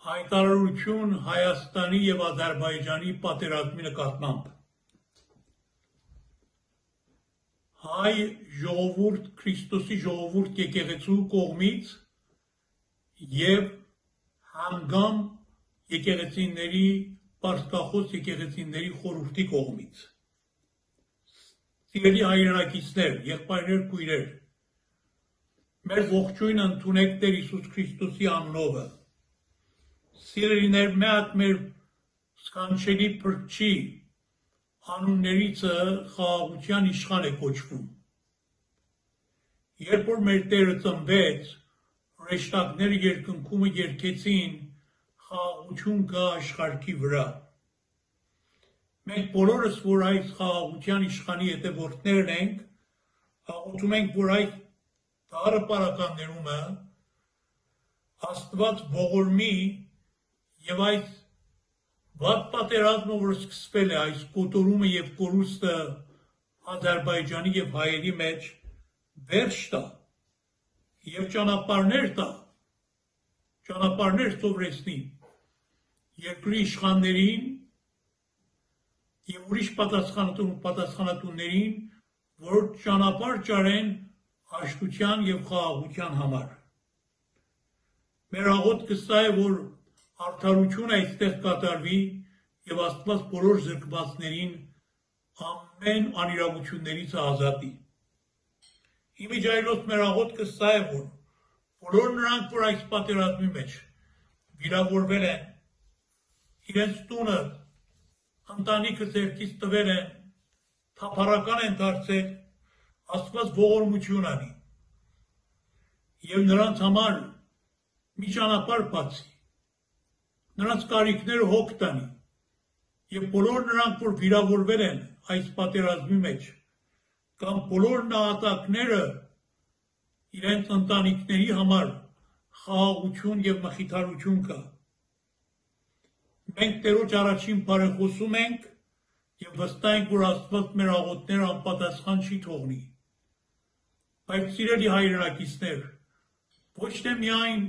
Հայտարարություն Հայաստանի և Ադրբեջանի պատերազմի նկատմամբ։ Հայ ժողովուրդ, Քրիստոսի ժողովուրդ եկեղեցու կողմից և հանգամ եկեղեցիների, պարսկախոս եկեղեցիների խորհրդի կողմից։ Սիրելի հայրենակիցներ, եղբայրներ, քույրեր, մեր ողջույնը ընդունեք Տեր Հիսուս Քրիստոսի անունով։ Սիրելիներ, մի հատ մեր սքանչելի փրկչի անուններիցը խաղաղության իշխան է կոչվում։ Երբ որ մեր Տերը ծնվեց, հրեշտակները երկնքումը երգեցին խաղաղություն կա աշխարհի վրա։ Մենք բոլորս, որ այս խաղաղության իշխանի հետևորդներն ենք, աղոթում ենք, որ այս դառը պարականներումը Աստված ողորմի և այս վատ պատերազմը, որ սկսվել է, այս կոտորումը և կորուստը Ադրբեջանի և հայերի մեջ վերջ տա և ճանապարհներ տա, ճանապարհներ սովորեցնի երկրի իշխաններին և ուրիշ պատասխանատուներին, որ ճանապարհ ճարեն հաշտության և խաղաղության համար։ Մեր աղոթքը սա է, որ արդարություն այստեղ կատարվի և Աստված բոլոր զրկվածներին ամեն անիրավություններից ազատի։ Իմիջայլոց մեր աղոթքը սա է, որ բոլոր նրանք, որ այս պատերազմի մեջ վիրավորվել են, իրենց տունը, ընտանիքը ձեռքից տվել են, թափառական են դարձել, Աստված ողորմություն անի և նրանց համար մի ճանապարհ բացի, նրանց կարիքները հոգ տանի և բոլոր նրանք, որ վիրավորվել են այս պատերազմի մեջ, կամ բոլոր նահատակները իրենց ընտանիքների համար խաղաղություն և մխիթարություն կա։ Մենք Տերոջ առաջին բարեխոսում ենք և վստահ ենք, որ Աստված մեր աղոթքները անպատասխան չի թողնի։ Բայց սիրելի հայրենակիցներ, ոչ թե միայն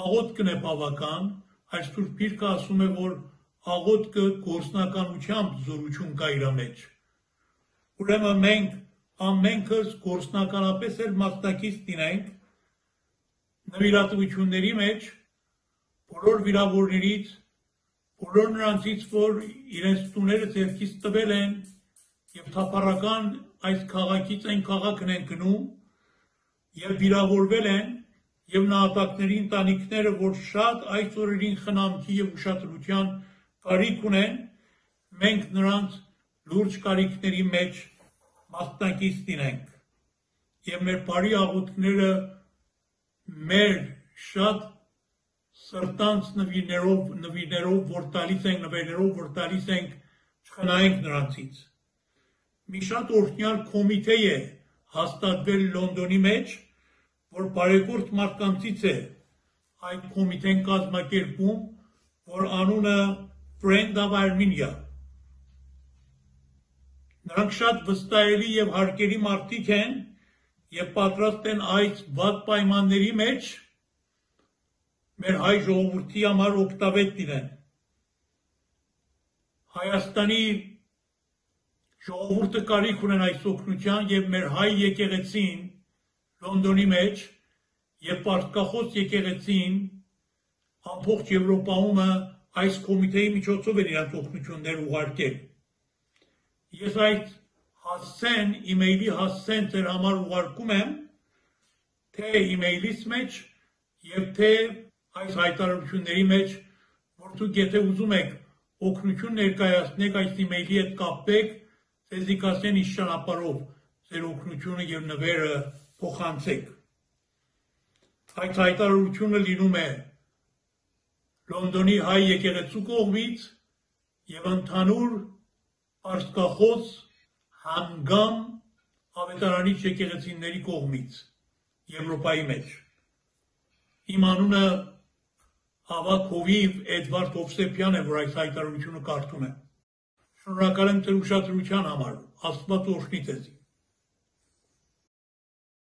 աղոթքն է բավական, այլ Սուրբ Գիրքը ասում է, որ աղոթքը գործնականությամբ զորություն կա իր մեջ։ Ուրեմն մենք ամենքս գործնականապես էլ մասնակից լինենք նվիրատվությունների մեջ բոլոր վիրավորներից, բոլոր նրանցից, որ իրենց տուները ձեռքից տվել են և թափառական այս քաղաքից այն քաղաքն են գնում և վիրավորվել են և նահատակների ընտանիքները, որ շատ այս օրերին խնամքի և ուշադրության կարիք ունեն, մենք նրանց լուրջ կարիքների մեջ մասնակից լինենք և մեր բարի աղոթքները մեր շատ սրտանց նվիրներով, որ տալիս ենք, չխնայենք նրանցից։ Մի շատ օրհնյալ կոմիտե է հաստատվել Լոնդոնի մեջ, որ բարեգործ մարդկանցից է այդ կոմիտեն կազմակերպում, որ անունը Friend of Armenia։ Նրանք շատ վստահելի և հարգելի մարդիկ են և պատրաստ են այս վատ պայմանների մեջ մեր հայ ժողովրդի համար օգտավետ լինեն։ Հայաստանի ժողովուրդը կարիք ունեն այս օգնության և մեր հայ եկեղեցին Լոնդոնի մեջ և պարսկախոս եկեղեցին ամբողջ Եվրոպայում այս կոմիտեի միջոցով են իրենց օգնությունները ուղարկել։ Ես այդ հասցեն, իմեյլի հասցեն ձեր համար ուղարկում եմ, թե իմեյլից մեջ և թե այս հայտարարությունների մեջ, որ դուք եթե ուզում եք օգնություն ներկայացնեք, այս իմեյլի հետ կապեք, ձեզի կասեն ինչ ճանապարհով ձեր օգնությունը և նվերը փոխանցեք։ Այդ հայտարարությունը լինում է Լոնդոնի հայ եկեղեցու կողմից և ընդհանուր պարսկախոս հանգամ ավետարանիչ եկեղեցիների կողմից Եվրոպայի մեջ։ Իմ անունը ավագ հովիվ Էդվարդ Հովսեփյանն է, որ այս հայտարարությունը կարդում է։ Շնորհակալ եմ ձեր ուշադրության համար, Աստված օրհնի ձեզ։